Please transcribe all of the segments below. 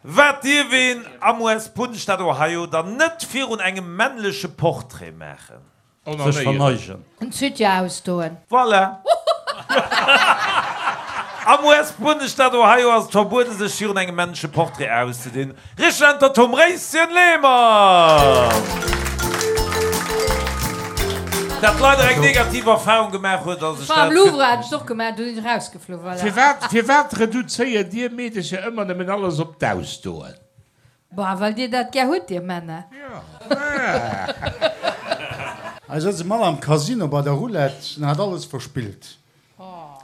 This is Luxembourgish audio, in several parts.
Wat dierf een am US-Bundesstaat Ohio dann net virun engem männleche Portrait maachen? Sech verneigen. En Soutien ausdoen. Voilà! Am US-Bundesstaat Ohio ass et verbueden, sech virun engem männleche Portrait auszedinn. Richteg Äntwert, Tom Réischen Lehmann! Dat leider eng negativ Erfahrung gemaach huet a sech War am dat. Louvre, hat ech et och gemaach, do sinn ech erausgeflu, voilà. Firwat, firwat reduzéiert dir Meedecher ëmmer nëmmen alles op d'Ausdoen? Boah, well dir dat gär hutt, dir Männer. Hei souz e Mann am Casino bei der Roulette an hat alles verspillt.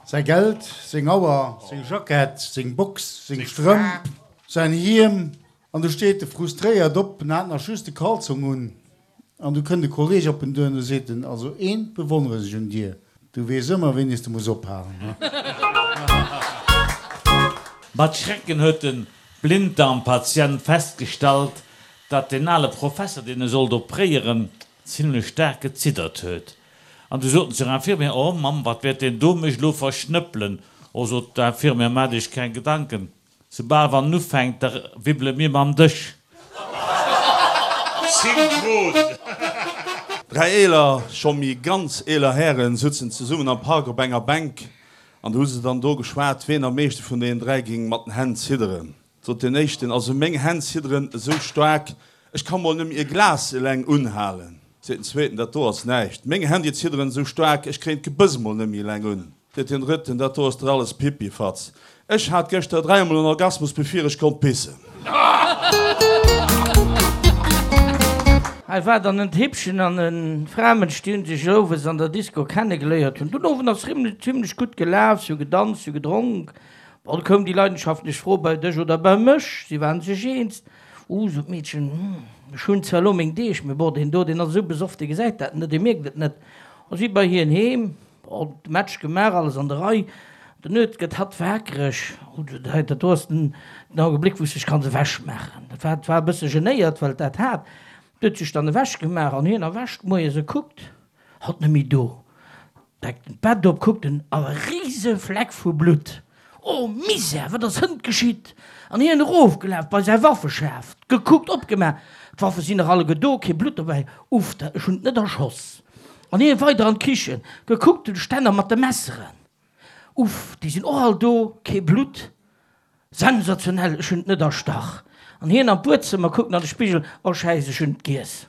Säi Geld, seng Auer, seng Jackett, seng Box, seng Strëmp, säin Hiem. An du steet e frustréiert op en hat nach just de Kalzong un. An du kënnt e Kolleg op en duer an du seet en, Also eent bewonneren ech un dir, du weess ëmmer wéini s de muss ophalen, he? Mat Schrecken huet den Blinddarmpatient festgestallt, datt deen ale Professer, deen e sollt opréieren, zimlech staark geziddert huet. An du sot en zur Infirmière, Oh Mamm, wat wäert deen do mech elo verschnëppelen? Oh, sot d'Infirmière, maacht Iech keng Gedanken, soubal wann en ufänkt, da wibbele mir mam Dësch. Synchron! Dräi eeler, scho méi ganz eeler Hären sutzen zesummen am Park op enger Bänk An du hu se dann do geschwat, ween am meeschte vun deenen 3 ging mat den Hänn zidderen. Sot deen éischten, Also meng Hänn zidderen esou staark, ech ka mol nëmme e Glas eleng unhalen. Seet den zweeten, Dat do ass näischt, meng Hänn déi zidderen esou staark, ech kréien d'Gebëss mol nëmme eleng un. Seet deen drëtten, Dat do ass der alles Pipifatz, ech hat gëschter dräimol en Orgasmus bevir ech konnt pissen. Hei war dann en Tippchen an e Framënsch, déi hunn sech owes an der Disco kennegeléiert hunn. Den Owend ass zimlech gutt gelaf, si hu gedanzt, si hu gedronk. Bon, du koum déi leidenschaftlech Fro, bei dech oder bei mech? Si waren sech eens. Uh, sot d'Meedchen, ech hunn zwar elo meng Deeg, mee bon, deen do, deen ass esou besoff, dee gesäit dat net, dee mierkt et net. A si bei hien heem. Bon, de Match gemaach, alles an der Rei. Den Nuet gëtt hatt waakreg. Oh, dat do ass den Augenblick, wou s dech kanns ewechmaachen. Dat war, war e bësse genéiert, well et dat hat. Et huet sech dann ewechgemaach an hien erwächt moies e kuckt, hatt net méi do. Deckt en d'Bett op, kuckt en, a e rise Fleck vu Blutt. Oh Misär, wat ass hënt geschitt? An hien erofgelaf bei säi Waffeschaf, gekuckt, opgemaach, d'Waffe sinn nach alleguer do, kee Blutt dobäi. Uff, da, ech hunn et net erschoss. An hien weider an d'Kichen, gekuckt, den Stänner mat de Messeren. Uff, déi sinn och all do, kee Blutt. Sensationell, ech hunn et net erstach. An hien an d'Buedzëmmer, kuckt an de Spigel, Oh Schäiss, ech hunn et giess.